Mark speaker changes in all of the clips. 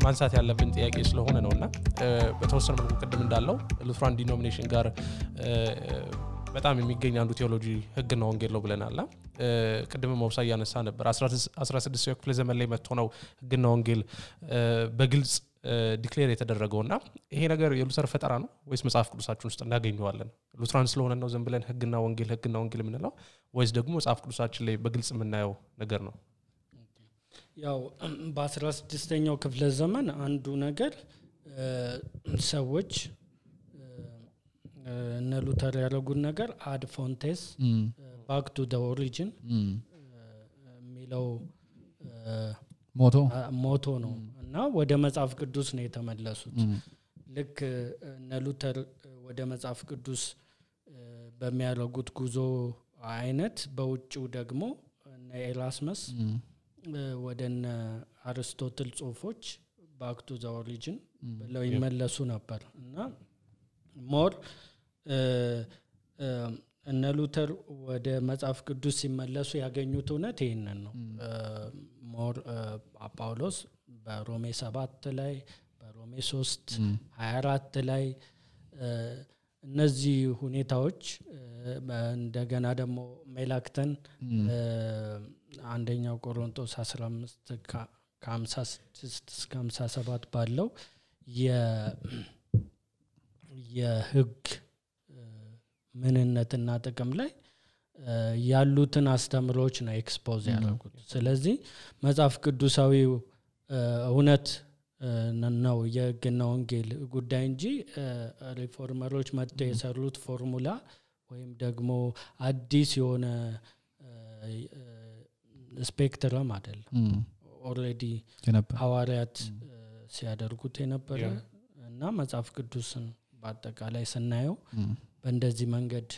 Speaker 1: ማንሳት ያለብን ጥያቄ ስለሆነ ነውና በተወሰነ መልኩ ቅድም እንዳለው ሉትራን ዲኖሚኔሽን ጋር በጣም የሚገኝ አንዱ ቴዎሎጂ ህግና ወንጌል ነው ብለናልና ቅድም መውሳያ ያነሳ ነበር 16ኛው ክፍለ ዘመን ላይ መጥቶ ነው ህግና ወንጌል በግልጽ ዲክሌር የተደረገውና ይሄ ነገር የሉተር ፈጠራ ነው ወይስ መጽሐፍ ቅዱሳችን ውስጥ እናገኘዋለን? ሉትራን ስለሆነ ነው ዝም ብለን ህግና ወንጌል ምንለው ወይስ ደግሞ መጽሐፍ ቅዱሳችን ላይ በግልጽ የምናየው ነገር ነው?
Speaker 2: ያው በ16ኛው ክፍለ ዘመን አንዱ ነገር ሰዎች እነ ሉተር ያደረጉት ነገር አድ ፎንቴስ ባክ ቱ ዘ ኦሪጂን ሚለው ሞቶ ነው እና ወደ መጽሐፍ ቅዱስ ነው የተመለሱት። ልክ እነ ሉተር ወደ መጽሐፍ ቅዱስ በሚያደርጉት ጉዞ አይነት በውጭው ደግሞ እነ ኤራስመስ ወደነ አርስቶትል ጽሁፎች ባክ ቱ ዘ ኦሪጂን ብለው ይመለሱ ነበር እና ሞር እነ ሉተር ወደ መጽሐፍ ቅዱስ ሲመለሱ ያገኙት እውነት ይሄንን ነው። ሞር ጳውሎስ በሮሜ 7 ላይ በሮሜ 3:24 ላይ እነዚህ ሁኔታዎች እንደገና ደግሞ ሜላክተን አንደኛው ቆሮንቶስ 15 ከ56 እስከ 57 ባለው የህግ ምንነትና ጥቅም ላይ ያሉትን አስተምሮች ነው ኤክስፖዝ ያደረጉት። ስለዚህ መጽሐፍ ቅዱሳዊው እውነት ነው የህግና ወንጌል ጉዳይ እንጂ ሪፎርመሮች መጥተው የሰሩት ፎርሙላ ወይም ደግሞ አዲስ የሆነ ስፔክትረም አይደለም። ኦሬዲ ሐዋርያት ሲያደርጉት የነበረ እና መጽሐፍ ቅዱስን በአጠቃላይ ስናየው በእንደዚህ መንገድ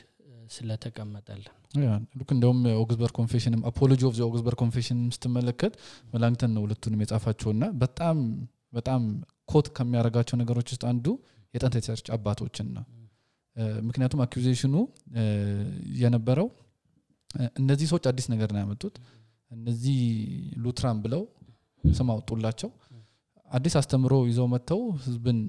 Speaker 2: ስለተቀመጠልን
Speaker 3: ልክ እንደውም ኦግስበርግ ኮንፌሽን አፖሎጂ ኦፍ ዘ ኦግስበርግ ኮንፌሽን ስትመለከት መላእክተን ነው ሁለቱንም የጻፋቸውና በጣም ኮት ከሚያረጋቸው ነገሮች ውስጥ አንዱ የጥንት የቸርች አባቶችን ነው። ምክንያቱም አኩዜሽኑ የነበረው እነዚህ ሰዎች አዲስ ነገር ነው ያመጡት፣ እነዚህ ሉትራን ብለው ስም አውጡላቸው አዲስ አስተምሮ ይዘው መተው ህዝብን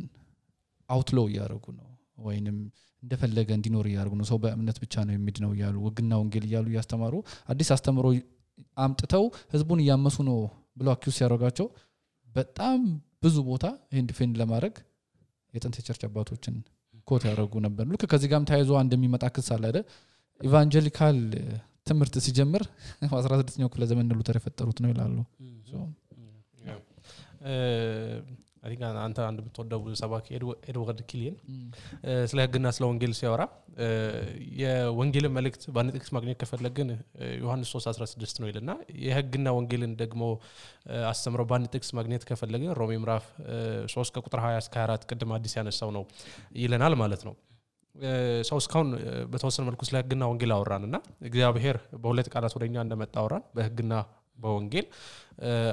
Speaker 3: አውትሎው ያደርጉ ነው ወይንም እንደፈለገ እንዲኖር ያደርጉ ነው። ሰው በእምነት ብቻ ነው የሚድነው ያሉ ህግና ወንጌል ይያሉ ያስተማሩ አዲስ አስተምሮ አምጥተው ህዝቡን ያመሱ ነው ብሎ አኩዝ ያደርጋቸው በጣም ብዙ ቦታ ይሄን ዲፌንድ ለማድረግ የጥንት የቸርች አባቶችን ኮት ያደርጉ ነበር። ልክ ከዚህ ጋርም ታይዞ እንደሚመጣ ክስ አለ አይደል? ኢቫንጀሊካል ትምህርት ሲጀምር 16ኛው ክፍለ ዘመን ሉተር የፈጠሩት ነው ይላሉ።
Speaker 1: አሪጋ አንተ አንድ ብትወደው ሰባኪ ኤድዋርድ ኪሊን ስለ ህግና ስለ ወንጌል ሲያወራ የወንጌል መልእክት ባንጥቅስ ማግኘት ከፈለግን ዮሐንስ 3:16 ነው ይልና የህግና ወንጌልን ደግሞ አስተምረው ባንጥቅስ ማግኘት ከፈለግን ሮሜ ምዕራፍ 3 ከቁጥር 20 እስከ 24 ቅድም አዲስ ያነሳው ነው ይለናል ማለት ነው። ሰው እስካሁን በተወሰነ መልኩ ስለ ህግና ወንጌል አወራንና እግዚአብሔር በሁለት ቃላት ወደኛ እንደመጣ አወራን በህግና በወንጌል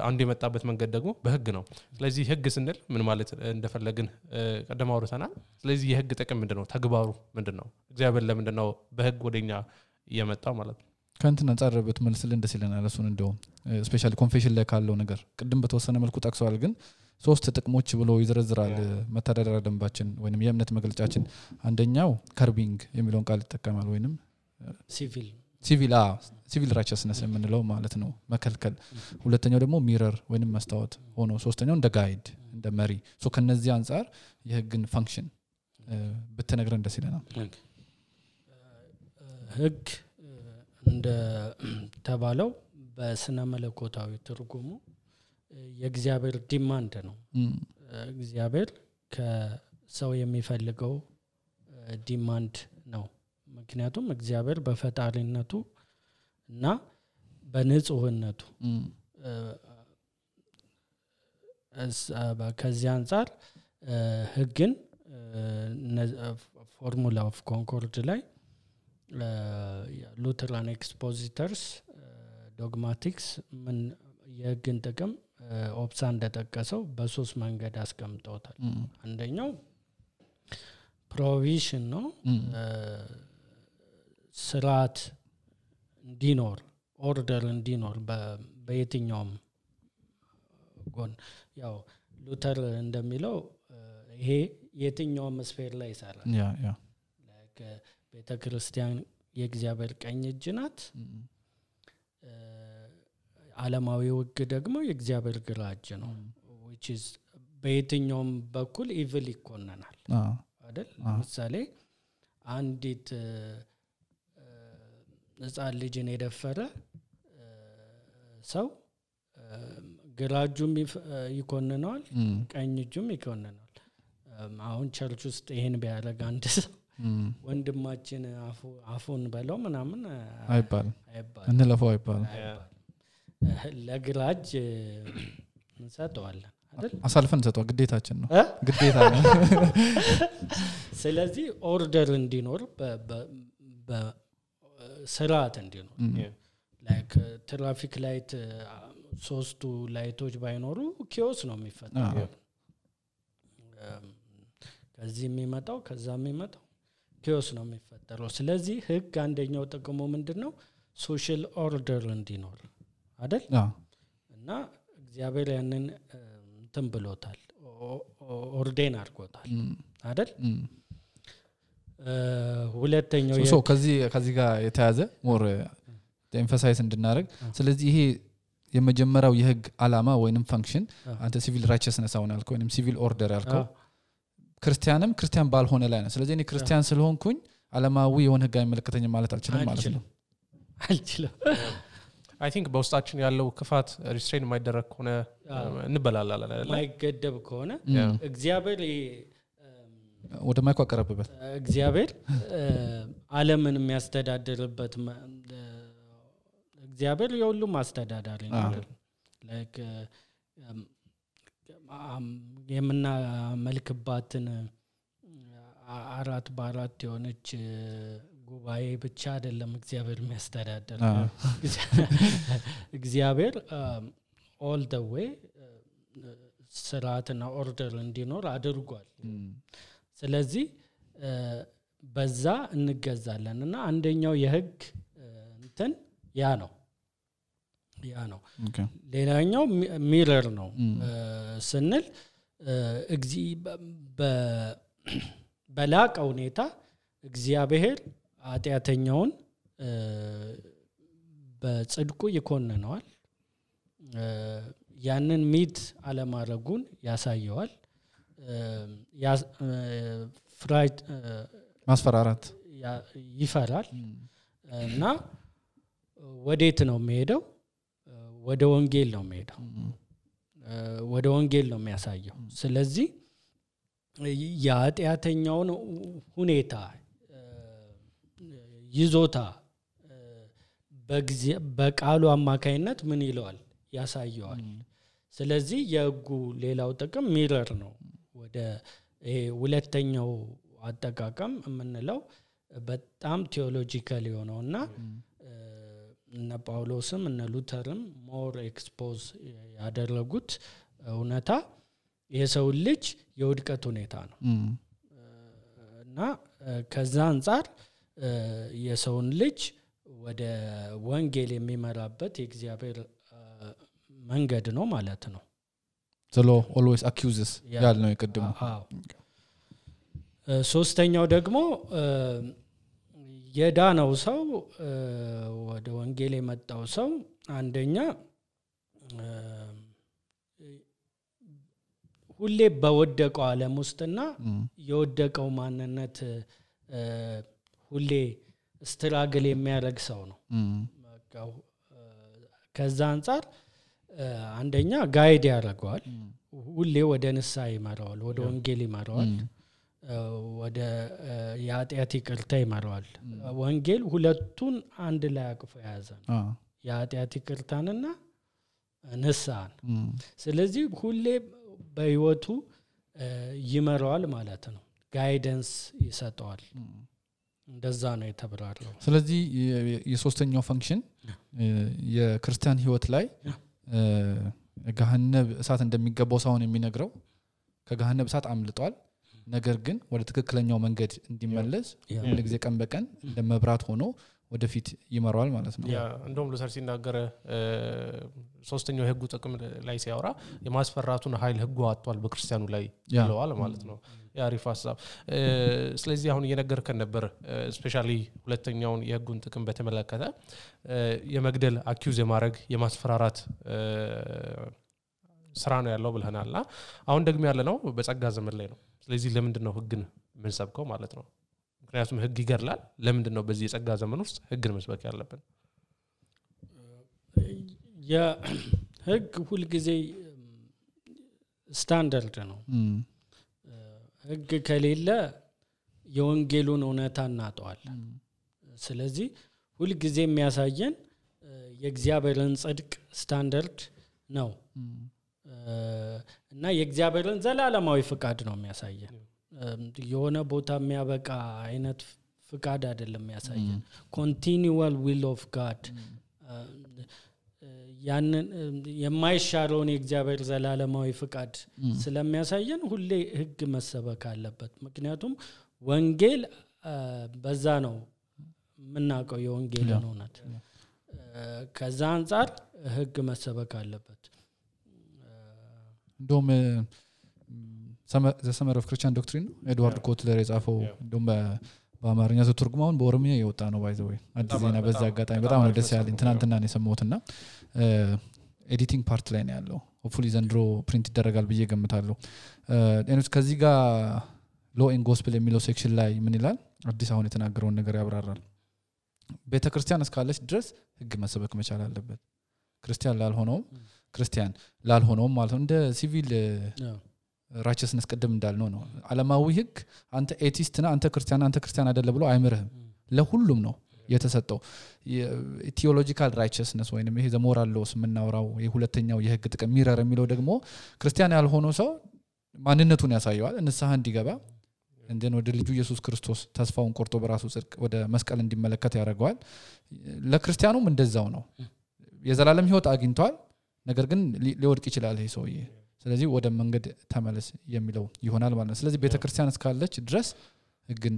Speaker 1: አንዱ የመጣበት መንገድ ደግሞ በህግ ነው። ስለዚህ ህግ ስንል ምን ማለት እንደፈለግን ቀደም አውርተናል። ስለዚህ የህግ ጥቅም ምንድነው? ተግባሩ ምንድነው? እግዚአብሔር ለምንድነው በህግ ወደኛ የመጣው ማለት ነው?
Speaker 3: ካንተን አንጻርበት መልስል እንደስ ይለናል። እሱን እንደው ስፔሻሊ ኮንፌሽን ላይ ካለው ነገር ቅድም በተወሰነ መልኩ ጠቅሰዋል፣ ግን ሶስት ጥቅሞች ብሎ ይዘረዝራል መተዳደሪያ ደንባችን ወይንም የእምነት መግለጫችን። አንደኛው ከርቢንግ የሚለውን ቃል ይጠቀማል ወይንም ሲቪል ራይቸስነስ የምንለው ማለት ነው መከልከል። ሁለተኛው ደግሞ ሚረር ወይንም መስታወት ሆኖ ሶስተኛው እንደ ጋይድ እንደ መሪ። ሶ ከነዚህ አንፃር የህግን ፋንክሽን በተነግረን ደስ ይለናል።
Speaker 2: ህግ እንደ ተባለው በስነ መለኮታዊ ትርጉሙ የእግዚአብሔር ዲማንድ ነው። እግዚአብሔር ከሰው የሚፈልገው ዲማንድ ነው። ምክንያቱም እግዚአብሔር በፈጣሪነቱ እና በንጹህነቱ ከዚህ አንፃር ህግን ፎርሙላ ኦፍ ኮንኮርድ ላይ ሉተራን ኤክስፖዚተርስ ዶግማቲክስ ምን የህግን ጥቅም ኦፕሳ እንደጠቀሰው በሶስት መንገድ አስቀምጠውታል። አንደኛው ፕሮቪዥን ነው፣ ስርዓት እንዲኖር ኦርደር እንዲኖር በየትኛውም ጎን። ያው ሉተር እንደሚለው ይሄ የትኛው መስፈር ላይ ይሰራል
Speaker 3: ያ
Speaker 2: ቤተክርስቲያን የእግዚአብሔር ቀኝ እጅ ናት ዓለማዊው ሕግ ደግሞ የእግዚአብሔር ግራ እጅ ነው which is በየትኛውም በኩል ኢቪል ይኮነናል አይደል ለምሳሌ አንዲት ሕፃን ልጅን የደፈረ ሰው ግራ እጁም ይኮነናል ቀኝ እጁም ይኮነናል አሁን ቸርች ውስጥ ይሄን ቢያደርግ አንድ ሰው ወንድማችን አፉን በለው ምናምን
Speaker 3: አይባልም እንለፈው አይባልም
Speaker 2: ለግራጅ እንሰጠዋለን አይደል
Speaker 3: አሳልፈን እንሰጠው ግዴታችን ነው ግዴታ ነው
Speaker 2: ስለዚህ ኦርደር እንዲኖር በስርዓት እንዲኖር ላይክ ትራፊክ ላይት ሶስቱ ላይቶች ባይኖሩ ኪዮስ ነው የሚፈጠረው ከዚህ የሚመጣው ከዛ የሚመጣው ኪዮስ ነው የሚፈጠረው ስለዚህ ህግ አንደኛው ጥቅሙ ምንድነው ሶሻል ኦርደር እንዲኖር አይደል እና እግዚአብሔር ያንን እንትን ብሎታል ኦርዴን አድርጎታል አይደል ሁለተኛው
Speaker 3: ከዚህ ጋር የተያዘ ሞር ኤምፋሳይዝ እንድናደርግ ስለዚህ ይሄ የመጀመሪያው የህግ ዓላማ ወይንም ፈንክሽን አንተ ሲቪል ራይቸስነስ አሁን አልከው ወይንም ሲቪል ኦርደር አልከው ክርስቲያን ባልሆነ ላይ ነው ስለዚህ እኔ ክርስቲያን ስለሆንኩኝ ዓለማዊ የሆነ ህግ አይመለከተኝም ማለት አልችልም ማለት ነው
Speaker 2: አልችልም
Speaker 1: አይ ቲንክ በውስጣችን ያለው ክፋት ሪስትሬን የማይደረግ ከሆነ እንበላላለን አይደል
Speaker 2: ማይገደብ ከሆነ እግዚአብሔር
Speaker 3: ወደ ማይኳ ቀረበበት
Speaker 2: እግዚአብሔር ዓለምን የሚያስተዳድርበት እግዚአብሔር የሁሉም አስተዳዳሪ ነው ላይክ የምናመልክባትን 4 በ4 የሆነች ጉባኤ ብቻ አይደለም እግዚአብሔር የሚያስተዳድር እግዚአብሔር all the way ስርዓትና ኦርደር እንዲኖር አድርጓል ስለዚህ በዛ እንገዛለንና አንደኛው የህግ እንትን ያ ነው ሌላኛው ሚረር ነው ስንል በላቀ ሁኔታ እግዚአብሔር ኃጢአተኛውን በጽድቁ ይኮንነዋል ያንን ሚት አለማረጉን ያሳየዋል
Speaker 3: ማስፈራራት
Speaker 2: ይፈራል እና ወዴት ነው የሚሄደው ወደ ወንጌል ነው የሚሄደው ወደ ወንጌል ነው የሚያሳየው ስለዚህ የኃጢአተኛውን ሁኔታ ይዞታ በቃሉ አማካይነት ምን ይለዋል ያሳየዋል ስለዚህ የህጉ ሌላው ጥቅም ሚረር ነው ወደ ሁለተኛው አጠቃቀም የምንለው በጣም ቴዎሎጂካል የሆነውና እነ ጳውሎስም እነ ሉተርም ሞር ኤክስፖዝ ያደረጉት እውነታ የሰው ልጅ የውድቀት ሁኔታ ነው እና ከዛ አንፃር የሰውን ልጅ ወደ ወንጌል የሚመራበት የእግዚአብሔር መንገድ ነው ማለት ነው
Speaker 3: the law always accuses ያልነው ይቀድሙ
Speaker 2: ሶስተኛው ደግሞ የዳነው ሰው ወደ ወንጌል የመጣው ሰው አንደኛ ሁሌ በወደቀው ዓለም ውስጥና የወደቀው ማንነት ሁሌ ስትራግል የሚያደርግ ሰው ነው ከዛ አንፃር አንደኛ ጋይድ ያደርገዋል ሁሌ ወደ ንስሐ ይመራዋል ወደ ወንጌል ይመራዋል ወደ የኃጢአት ይቅርታ ይመራዋል ወንጌል ሁለቱን አንድ ላይ አቅፎ ያዘ ነው የኃጢአት ይቅርታንና ንስሐን ስለዚህ ሁሌ በህይወቱ ይመራዋል ማለት ነው ጋይደንስ ይሰጠዋል እንደዛ ነው የተብራራው
Speaker 3: ስለዚህ የሶስተኛው ፈንክሽን የክርስቲያን ህይወት ላይ ገሃነብ እሳት እንደሚገባው ሳይሆን የሚነግረው ከገሃነብ እሳት አምልጧል ነገር ግን ወደ ትክክለኛው መንገድ እንዲመለስ ሁሉ ጊዜ ቀን በቀን እንደመብራት ሆኖ ወደፊት ይመራዋል ማለት ነው
Speaker 1: ያ እንደውም ሉተር ሲናገር ሶስተኛው የህጉ ጥቅም ላይ ሲያወራ የማስፈራቱን ኃይል ህጉ አጥቷል በክርስቲያኑ ላይ ይለዋል ማለት ነው ያ አሪፍ ሐሳብ ስለዚህ አሁን እየነገርከን ነበር ስፔሻሊ ሁለተኛውን የህጉን ጥቅም በተመለከተ የመግደል አኪዩዝ የማድረግ የማስፈራራት ስራ ነው ያለው ብለናልና አሁን ደግሞ ያለ ነው በጸጋ ዘመን ላይ ነው ስለዚህ ለምንድን ነው ህግን ምን ሰብከው ማለት ነው ምክንያቱም ህግ ይገርላል ለምንድን ነው በዚህ የጸጋ ዘመን ውስጥ ህግን መስበክ ያለብን
Speaker 2: የህግ ሁሉ ጊዜ ስታንዳርድ ነው ህግ ከሌለ የወንጌሉን እውነታ እናጠዋል ስለዚህ ሁሉ ጊዜ የሚያሳየን የእግዚአብሔርን ጽድቅ ስታንዳርድ ነው እና የእግዚአብሔርን ዘላለማዊ ፍቃድ ነው የሚያሳየን የሆነ ቦታ የሚያበቃ አይነት ፍቃድ አይደለም የሚያሳየን continual will of God ያንን የማይሻረውን የእግዚአብሔር ዘላለማዊ ፍቃድ ስለሚያሳየን ሁሌ ህግ መሰበክ አለበት ምክንያቱም ወንጌል በዛ ነው ምናቀው የወንጌልን እውነት ከዛ አንፃር ህግ መሰበክ አለበት
Speaker 3: እንደውም the Summer of Christian Doctrine ኤድዋርድ ኮትለር የጻፈው እንደውም በአማርኛ ተተርጉማውን በኦሮምኛ የወጣ ነው ባይ ዘ ወይ አዲስ ዜና በዛ አጋጣሚ በጣም ነው ደስ ያለኝ ትናንትና ነው የሰማሁትና ኤዲቲንግ ፓርት ላይ ነው ያለው ሆፕፉሊ ዘንድሮ ፕሪንት ይደረጋል ብዬ ገምታለሁ እኔስ ከዚህ ጋር ሎ ኤንድ ጎስፔል የሚለው ሴክሽን ላይ ምን ይላል አዲስ አሁን የተናገረውን ነገር ያብራራል ቤተክርስቲያን እስካለች ድረስ ህግ መሰበክ መቻል አለበት ክርስቲያን ላልሆነው ማለት ነው እንደ ሲቪል righteousness ቀደም እንዳልነው ነው ዓለማዊ ህግ አንተ ኤቲስት ነህ አንተ ክርስቲያን አይደለ ብሎ አይምርህም ለሁሉም ነው የተሰጠው ቲዮሎጂካል righteousness ወይንም ይሄ ዘሞራል ሎስ ምናወራው የሁለተኛው የህግ ጥቅም ሚረር የሚለው ደግሞ ክርስቲያን ያልሆነው ሰው ማንነቱን ያሳየዋል እንስሐ እንዲገባ እንደን ወደ ልጁ ኢየሱስ ክርስቶስ ተስፋውን ቆርጦ በራሱ ጽድቅ ወደ መስቀል እንዲመለከት ያደርጋል ለክርስቲያኑም እንደዛው ነው የዘላለም ህይወት አግኝቷል ነገር ግን ሊወድቅ ይችላል ይሄ ሰውዬ ስለዚህ ወደ መንገድ ተመለስ የሚለው ይሆናል ማለት ነው ስለዚህ ቤተክርስቲያን እስካለች ድረስ ህግን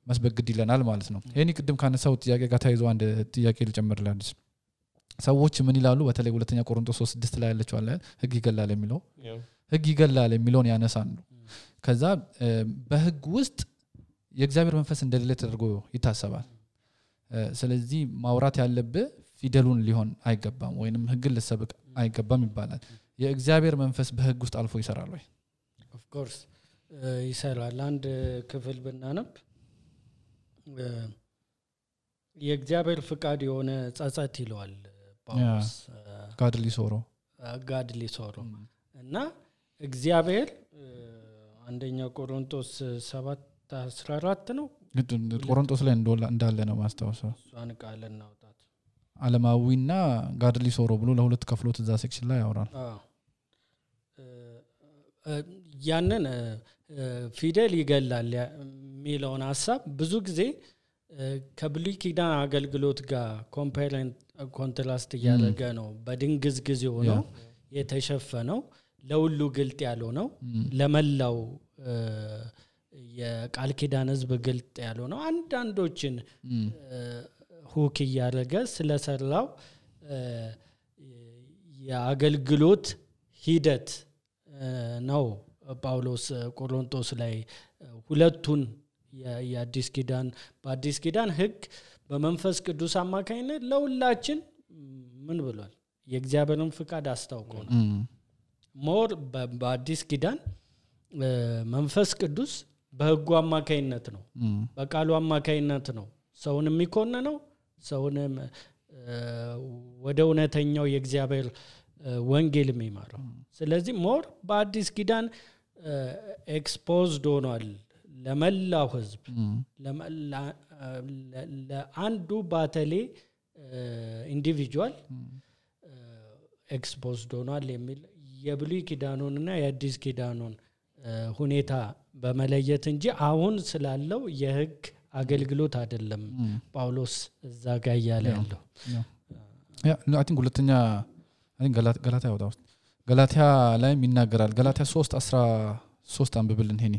Speaker 3: መስበክ ግድ ይለናል ማለት ነው ይሄን ቅድም ካነሳው ጥያቄ ጋር ታይዞ አንድ ጥያቄ ልጨምርላችሁ ሰዎች ምን ይላሉ በተለይ ሁለተኛ ቆሮንቶስ 3:6 ላይ ያለችው አለ ህግ ይገላል የሚለውን ያነሳሉ ከዛ በህግ ውስጥ የእግዚአብሔር መንፈስ እንደሌለ ተደርጎ ይታሰባል ስለዚህ ማውራት ያለበት ፊደሉን ሊሆን አይገባም ወይንም ህግን ለሰብክ አይገባም ይባላል የእግዚአብሔር መንፈስ በህግ ውስጥ አልፎ ይሰራል ወይ
Speaker 2: ኦፍ ኮርስ ይሰራል አንድ ክፍል ብናነብ የእግዚአብሔር ፍቃድ የሆነ ጸጸት ይለዋል ጳውሎስ ጋድሊ ሶሮ እና እግዚአብሔር አንደኛ ቆሮንቶስ 7:14 ነው
Speaker 3: ቆሮንቶስ ላይ እንዳለ ነው ማስተዋወሰው
Speaker 2: እሷን ቃል እናውጣት
Speaker 3: ዓለማዊና ጋድሊ ሶሮ ብሎ ለሁለት ከፍሎት እዛ ሴክሽን ላይ ያወራል
Speaker 2: ያንን ፊደል ይገላል የሚለውን ሐሳብ ብዙ ጊዜ ከብሉይ ኪዳን አገልግሎት ጋር ኮንትራስት ያደረገ ነው በድንግዝግዝ የሆነው የተሸፈነው ለሁሉ ግልጥ ያለው ነው ለመላው የቃል ኪዳን ህዝብ ግልጥ ያለው ነው አንዳንዶችን ሁክ ያደረገ ስለሰራው የአገልግሎት ሂደት ነው ጳውሎስ ቆሮንቶስ ላይ ሁለቱን የአዲስ ኪዳን በአዲስ ኪዳን ህግ በመንፈስ ቅዱስ አማካኝነት ለሁላችን ምን ብሏል የእግዚአብሔርን ፍቃድ አስታውቆ ነው ሞር በአዲስ ኪዳን መንፈስ ቅዱስ በህጉ አማካኝነት ነው በቃሉ አማካኝነት ነው ሰውን የሚኮነነው ሰውንም ወደ እውነተኛው የእግዚአብሔር ወንጌል የሚማረው ስለዚህ ሞር በአዲስ ኪዳን ኤክስፖዝድ ሆኗል ለመላው ህዝብ ለአንዱ ባተሌ ኢንዲቪጁዋል ኤክስፖዝድ ሆኗል የሚል የብሉይ ኪዳኑንና የአዲስ ኪዳኑን ሁኔታ በመለየት እንጂ አሁን ስላለው የህግ አገልግሎት አይደለም ጳውሎስ እዛ ጋር ያለ ያለው
Speaker 3: አይ ቲንክ ሁለተኛ አይ ቲንክ ገላትያ ወጣው ገላትያ ላይ ይናገራል ገላትያ 3:13 አንብብልን ሄኒ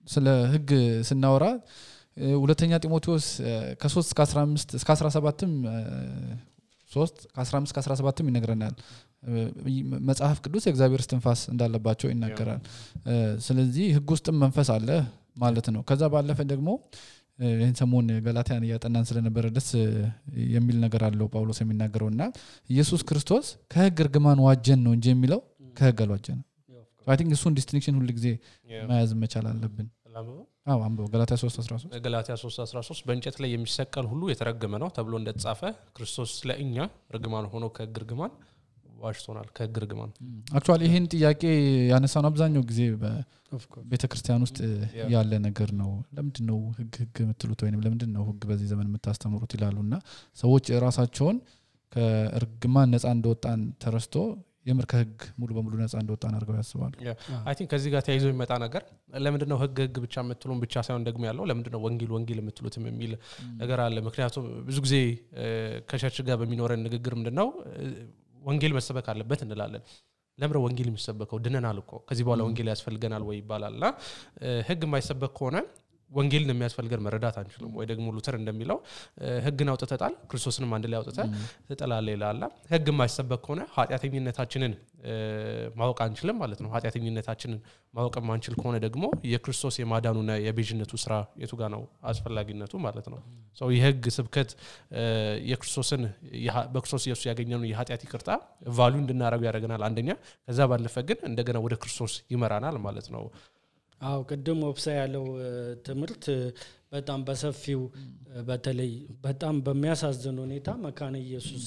Speaker 3: ስለ ህግ ስናወራ ሁለተኛ ጢሞቴዎስ ከ3 እስከ 15 እስከ 17ም 3 ከ15 እስከ 17ም ይነግረናል መጽሐፍ ቅዱስ የእግዚአብሔር እስትንፋስ እንዳለባቸው ይናገራል ስለዚህ ህግ ውስጥም መንፈስ አለ ማለት ነው ከዛ ባለፈ ደግሞ ይሄን ሰሞን ገላትያን ያጠናን ስለነበረ ደስ የሚል ነገር አለው ጳውሎስ የሚናገረውና ኢየሱስ ክርስቶስ ከህግ እርግማን ዋጀን ነው እንጂ የሚለው ከህግ አልዋጀን I think እሱን ዲስቲንክሽን ሁሉ ጊዜ ማያዝ መቻል አለብን አንበው ገላትያ 3:13
Speaker 1: ገላትያ 3:13 በእንጨት ላይ የሚሰቀል ሁሉ የተረገመ ነው ተብሎ እንደተጻፈ ክርስቶስ ለእኛ ርግማን ሆኖ ከህግ እርግማን ዋጅቶናል ከህግ እርግማን
Speaker 3: አክቹአሊ ይሄን ጥያቄ ያነሳን አብዛኛው ጊዜ በቤተክርስቲያን ውስጥ ያለ ነገር ነው ለምንድነው ህግ የምትሉት ወይንም ለምንድነው ህግ በዚህ ዘመን የምታስተምሩት ይላሉና ሰዎች ራሳቸውን ከእርግማን ነፃ እንደወጣን ተረስቶ የምር ከህግ ሙሉ በሙሉ ነፃ እንደወጣን አድርገው ያስባሉ
Speaker 1: አይ ቲንክ ከዚህ ጋር ተያይዞ የሚመጣ ነገር ለምንድነው ህግ ብቻ የምትሉን ብቻ ሳይሆን ደግሞ ያለው ለምንድነው ወንጌል የምትሉትም የሚል ነገር አለ ምክንያቱም ብዙ ጊዜ ከቸርች ጋር በሚኖረን ንግግር ምንድነው ወንጌል መሰበክ አለበት እንላለን ለምንድነው ወንጌል የሚሰበከው ድነናል እኮ ከዚህ በኋላ ወንጌል ያስፈልገናል ወይ ይባላልና ህግ የማይሰበክ ከሆነ ወንጌልን የሚያስፈልገን መረዳት አንችልም ወይ ደግሞ ሉተር እንደሚለው ህግን አውጥተታል ክርስቶስንም አንድ ላይ አውጥተ ተጠላለ ይላል ህግ የማይሰበክ ከሆነ ኃጢአተኝነታችንን ማወቅ አንችልም ማለት ነው ኃጢአተኝነታችንን ማወቅ ማንችል ከሆነ ደግሞ የክርስቶስ የማዳኑና የቤዥነቱ ስራ የቱ ጋር ነው አስፈላጊነቱ ማለት ነው ሶ የህግ ስብከት የክርስቶስን በክርስቶስ ኢየሱስ ያገኘነው የኃጢአት ይቅርታ ቫልዩ እንድናረጋው ያደርገናል አንደኛ ከዛ ባለፈ ግን እንደገና ወደ ክርስቶስ ይመራናል ማለት ነው
Speaker 2: አው ቀደም ወብሳ ያለው ትምርት በጣም በሰፊው በተለይ በጣም በሚያሳዝን ሁኔታ መካነ ኢየሱስ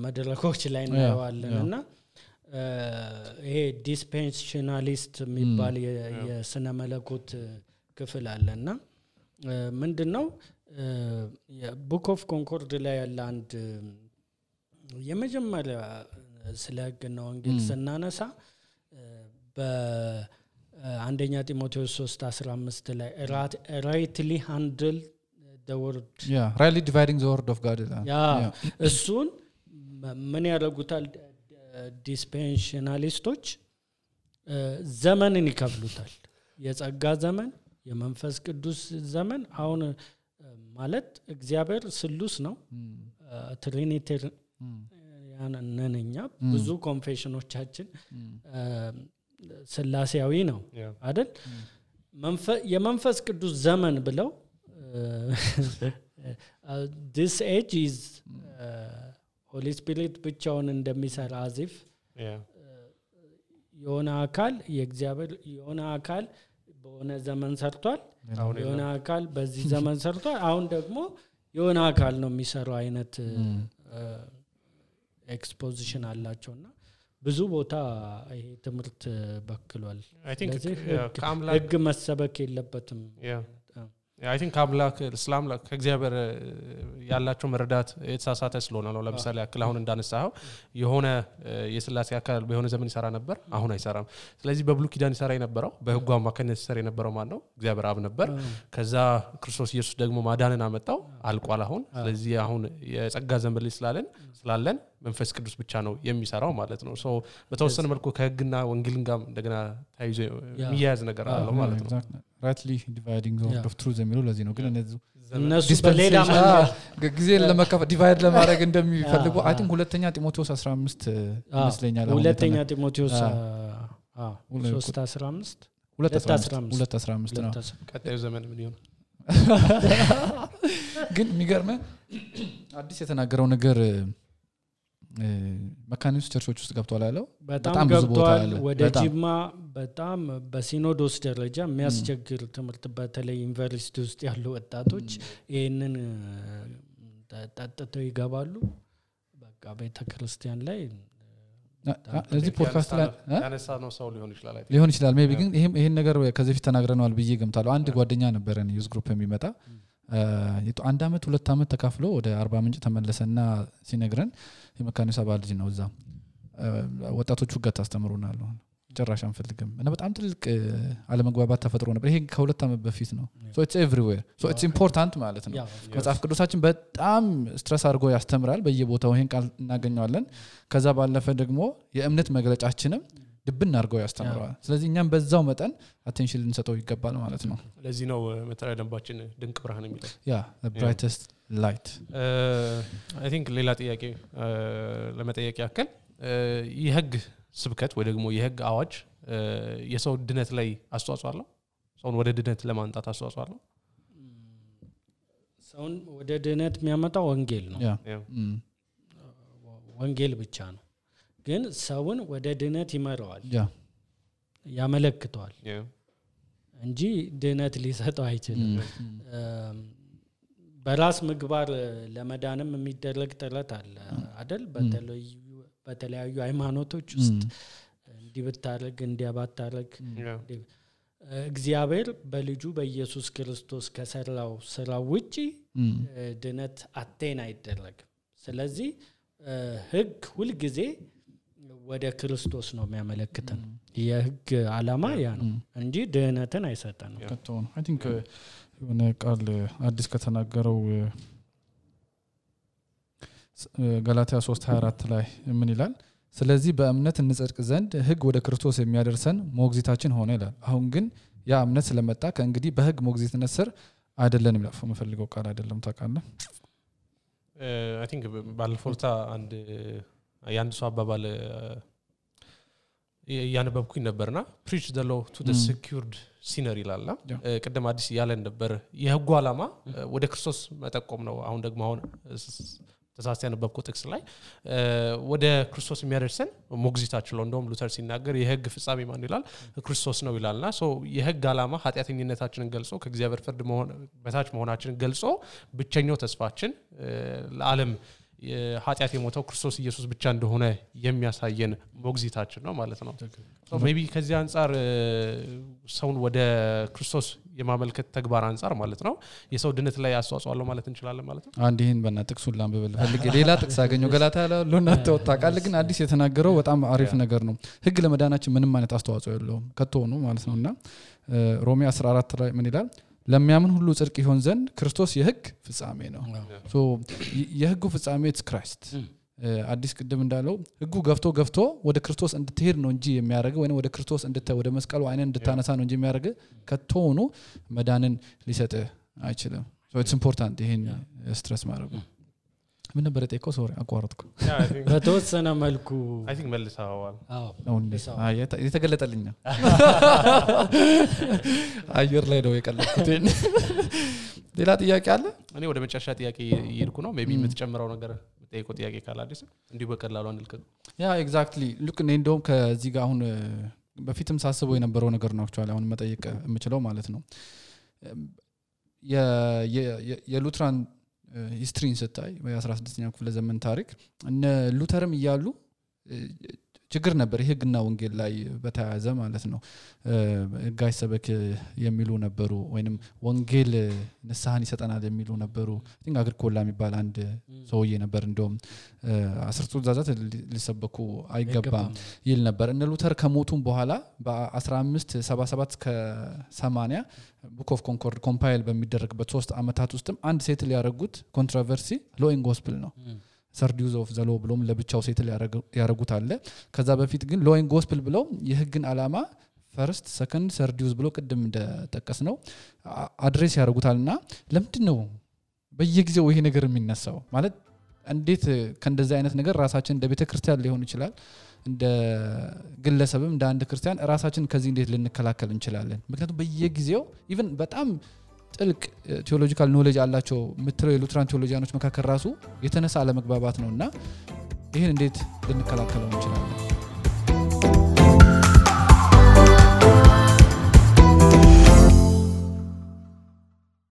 Speaker 2: መድረኮች ላይ እናያዋለንና ይሄ ዲስፔንሽናሊስት የሚባል የስነ መለኮት ክፍል አለና ምንድነው የቡክ ኦፍ ኮንኮርድ ላይ ያለ አንድ የመጀመሪያ ስለ ህግና ወንጌል ስናነሳ አንደኛ ጢሞቴዎስ 3:15 ላይ rightly handle the word
Speaker 3: rightly dividing the word of God
Speaker 2: እሱን ምን ያደርጉታል ዲስፔንሽናሊስቶች ዘመንን ይከፍሉታል የጸጋ ዘመን የመንፈስ ቅዱስ ዘመን አሁን ማለት እግዚአብሔር ስሉስ ነው ትሪኒቲ ያነነኛ ብዙ ኮንፌሽኖቻችን ስላሴያዊ ነው አይደል የመንፈስ ቅዱስ ዘመን ብለው this age is holy spirit ብቻውን እንደሚሰራ አዚፍ የሆነ አካል የእግዚአብሔር የሆነ አካል በሆነ ዘመን ሰርቷል የሆነ አካል በዚህ ዘመን ሰርቷል አሁን ደግሞ የሆነ አካል ነው የሚሰራው አይነት ኤክስፖዚሽን አላቸውና ብዙ ቦታ ይሄ ትምርት በክሏል
Speaker 1: I think
Speaker 2: ህግ መሰበክ የለበትም
Speaker 1: I think አምላክ እስላም ከእግዚአብሔር ያላቸው መረዳት የተሳሳተ ስለሆነ ነው ለምሳሌ አክል አሁን እንዳነሳው የሆነ የስላሴ አካል በሆነ ዘመን ይሰራ ነበር አሁን አይሰራም ስለዚህ በብሉይ ኪዳን ይሰራ የነበረው በህጉ አማካኝነት ይሰራ የነበረው ማን ነው እግዚአብሔር አብ ነበር ከዛ ክርስቶስ ኢየሱስ ደግሞ ማዳንን አመጣው አልቋል አሁን ስለዚህ አሁን የጸጋ ዘመን ላይ ስላለን መንፈስ ቅዱስ ብቻ ነው የሚሰራው ማለት ነው ሶ በተወሰነ መልኩ ከህግና ወንጌልን ጋር እንደገና ታይዞ የሚያያዝ ነገር አለው ማለት ነው
Speaker 3: rightly dividing the word of truth የሚለው ለዚህ ነው ግን
Speaker 2: እነሱ በሌላ
Speaker 3: ጊዜን ለመከፋፈል ዲቫይድ ለማድረግ እንደሚፈልጉ አይ ቲንክ ሁለተኛ ጢሞቴዎስ 15 ይመስለኛል
Speaker 2: ሁለተኛ ጢሞቴዎስ 3:15 2:15
Speaker 3: ነው
Speaker 1: ቀጣዩ ዘመን ምን ይሆን
Speaker 3: ግን የሚገርም አዲስ የተናገረው ነገር መካኒስ ቸርቾች ውስጥ ገብቷል ያለው
Speaker 2: በጣም ገብቷል ወደ ጂማ በጣም በሲኖዶስ ደረጃ የሚያስቸግር ትምህርት በተለይ ዩኒቨርሲቲ ውስጥ ያሉ ወጣቶች ይሄንን ተጣጣተው ይገባሉ በቃ ቤተክርስቲያን ላይ
Speaker 3: እዚህ ፖድካስት ላይ
Speaker 1: ያነሳ ነው ሰው
Speaker 3: ሊሆን ይችላል ሜቢ ግን ይሄን ነገር ከዚህ በፊት ተናግረናል ብዬ ገምታለሁ አንድ ጓደኛ ነበረን ዩዝ ግሩፕ የሚመጣ አንድ አመት 2 አመት ተካፍሎ ወደ 40 ምንጭ ተመለሰና ሲነግረን የመካኒሳ ባልጅ ነው እዛ ወጣቶቹ ጋር ታስተምሩናል ጭራሽ አንፈልግም እና በጣም ትልቅ አለመግባባት ተፈጥሮ ነበር ይሄ ከ2 አመት በፊት ነው so it's everywhere so it's important ማለት ነው መጽሐፍ ቅዱሳችን በጣም ስትረስ አድርጎ ያስተምራል በየቦታው ይሄን ቃል እናገኘዋለን ከዛ ባለፈ ደግሞ የእምነት መግለጫችንም ድብን አድርገው ያስተምረዋል ስለዚህ እኛም በዛው መጠን አቴንሽን ልንሰጠው ይገባል ማለት ነው
Speaker 1: ለዚህ ነው መተሪያ ደንባችን ድንቅ ብርሃን የሚለው
Speaker 3: ያ the brightest light
Speaker 1: I think ሌላ ጥያቄ ለመጠየቅ ያከል የህግ ስብከት ወይ ደግሞ የህግ አዋጅ የሰው ድነት ላይ አስተዋጽኦ አለው ሰውን ወደ ድነት ለማንጣት አስተዋጽኦ አለው
Speaker 2: ሰውን ወደ ድነት የሚያመጣው ወንጌል ነው ወንጌል ብቻ ነው ግን ሰውን ወደ ድነት ይመራዋል ያመለክተዋል እንጂ ድነት ሊሰጠው አይችልም በራስ ምግባር ለመዳንም የሚደረግ ጥረት አለ አይደል በተለያዩ ሃይማኖቶች ውስጥ እንዲብታረግ እንዲያባታረግ እግዚአብሔር በልጁ በኢየሱስ ክርስቶስ ከሰራው ስራ ውጪ ድነት አቴን አይደረግም ስለዚህ ህግ ሁሉ ጊዜ ወደ ክርስቶስ ነው የሚያመለክተን የህግ ዓላማ ያ ነው እንጂ ድነትን አይሰጠንም
Speaker 3: ከተውን I think የሆነ ቃል አዲስ ከተናገረው ገላትያ 3:24 ላይ ምን ይላል ስለዚህ በእምነት እንጸድቅ ዘንድ ህግ ወደ ክርስቶስ የሚያደርሰን ሞግዚታችን ሆነ ይላል አሁን ግን ያ እምነት ስለመጣ ከእንግዲህ በህግ ሞግዚትነት ስር አይደለንም ይላል የምፈልገው ቃል አይደለም ታውቃለህ
Speaker 1: I think ባልፎርታ አንድ ያንድ ሰው አባባል ያነበብኩኝ ነበርና preach the law to the secured sinner ይላልና ቀደም አዲስ ያለን ነበር የህጉ ዓላማ ወደ ክርስቶስ መጠቆም ነው አሁን ደግሞ አሁን ተሳስተ ያነበብኩ ጥቅስ ላይ ወደ ክርስቶስ የሚያደርሰን ሞግዚታችን ነው እንደውም ሉተር ሲናገር የህግ ፍጻሜ ማን ይላል ክርስቶስ ነው ይላልና ሶ የህግ ዓላማ ኃጢአተኝነታችንን ገልጾ ከእግዚአብሔር ፍርድ በታች መሆናችንን ገልጾ ብቸኛው ተስፋችን ለዓለም ኃጢአት የሞተው ክርስቶስ ኢየሱስ ብቻ እንደሆነ የሚያሳየን ሞግዚታችን ነው ማለት ነው ሶ ሜቢ ከዚህ አንፃር ሰውን ወደ ክርስቶስ የማመልከት ተግባር አንፃር ማለት ነው የሰው ድነት ላይ አስተዋጽኦ አለው ማለት እንችላለን ማለት ነው
Speaker 3: አንድ ይሄን በእና ጥቅሱን ላንብብል ፈልጌ ሌላ ጥቅስ አገኘው ገላትያ ያለውና ተወጣቃል ግን አዲስ የተናገረው በጣም አሪፍ ነገር ነው ህግ ለመዳናችን ምንም ማለት አስተዋጽኦ የለውም ከተሆኑ ማለት ነውና ሮሜ 14 ላይ ምን ይላል ለሚያምን ሁሉ ጽድቅ ይሆን ዘንድ ክርስቶስ የህግ ፍጻሜ ነው ሶ የህጉ ፍጻሜ it's Christ አዲስ ቅድም እንዳለው ህጉ ገፍቶ ወደ ክርስቶስ እንድትሄድ ነው እንጂ የሚያደርገው ወይ ወደ ክርስቶስ ወደ መስቀሉ አይነን እንድታነሳ ነው እንጂ የሚያደርገው ከተሆኑ መዳንን ሊሰጥ አይችልም so it's important ይሄን ስትረስ ማድረግ ምን ነበር የጠየቀው ሶሪ አቋረጥኩ
Speaker 2: በተወሰነ መልኩ
Speaker 1: I think መልሳዋል
Speaker 2: አዎ
Speaker 3: የተገለጠልኝ አየር ላይ ነው የቀለልኩት ሌላ ጥያቄ አለ
Speaker 1: እኔ ወደ መጨረሻ ጥያቄ ይርኩ ነው ሜቢ የምትጨምረው ነገር የምትጠይቀው ጥያቄ ካለ አዲስ እንዲሁ በቀላሉ አንልከው
Speaker 3: ያ ኤግዛክትሊ ሉክ እንደውም ከዚህ ጋር አሁን በፊትም ሳስበው የነበረው ነገር ነው አክቹአሊ አሁን መጠየቅ የምችለው ማለት ነው የሉትራን ሂስትሪን ስታይ በ16ኛው ክፍለ ዘመን ታሪክ እነ ሉተርም ይያሉ ችግር ነበር ህግና ወንጌል ላይ በተያያዘ ማለት ነው ጋይ ሰበክ የሚሉ ነበሩ ወይንም ወንጌል ንስሐን ይሰጠናል የሚሉ ነበሩ እንግዲህ አግሪኮላ የሚባል አንድ ሰውዬ ነበር እንደውም 10 ትእዛዛት ሊሰበኩ አይገባም ይል ነበር እነ ሉተር ከሞቱም በኋላ በ1577 ከ80 ቡክ ኦፍ ኮንኮርድ ኮምፓይል በሚደረግበት 3 አመታት ውስጥም አንድ ሴትል ያደረጉት ኮንትሮቨርሲ ሎ ኢን ጎስፕል ነው ሰርዲዩዝ ኦፍ ዘ ሎ ብሎም ለብቻው ሴትል ያደረጉት አለ ከዛ በፊት ግን ሎ ኢን ጎስፕል ብለው የህግን ዓላማ ፈርስት ሰከንድ ሰርዲዩዝ ብሎ ቅድም እንደተጠቀስ ነው አድሬስ ያደርጉታልና ለምንድነው በየጊዜው ይሄ ነገር የሚነሳው ማለት እንዴት ከእንደዚህ አይነት ነገር ራሳችን እንደ ቤተክርስቲያን ሊሆን ይችላል እንደ ግለሰብም እንደ አንድ ክርስቲያን ራሳችን ከዚህ እንዴት ልንከላከል እንችላለን ምክንያቱም በየጊዜው ኢቭን በጣም ጥልቅ ቴዎሎጂካል ኖሌጅ አላቸው ምትለው የሉትራን ቴዎሎጂያኖች መካከል ራሱ የተነሳ አለመግባባት ነውና ይሄን እንዴት ልንከላከለው እንችላለን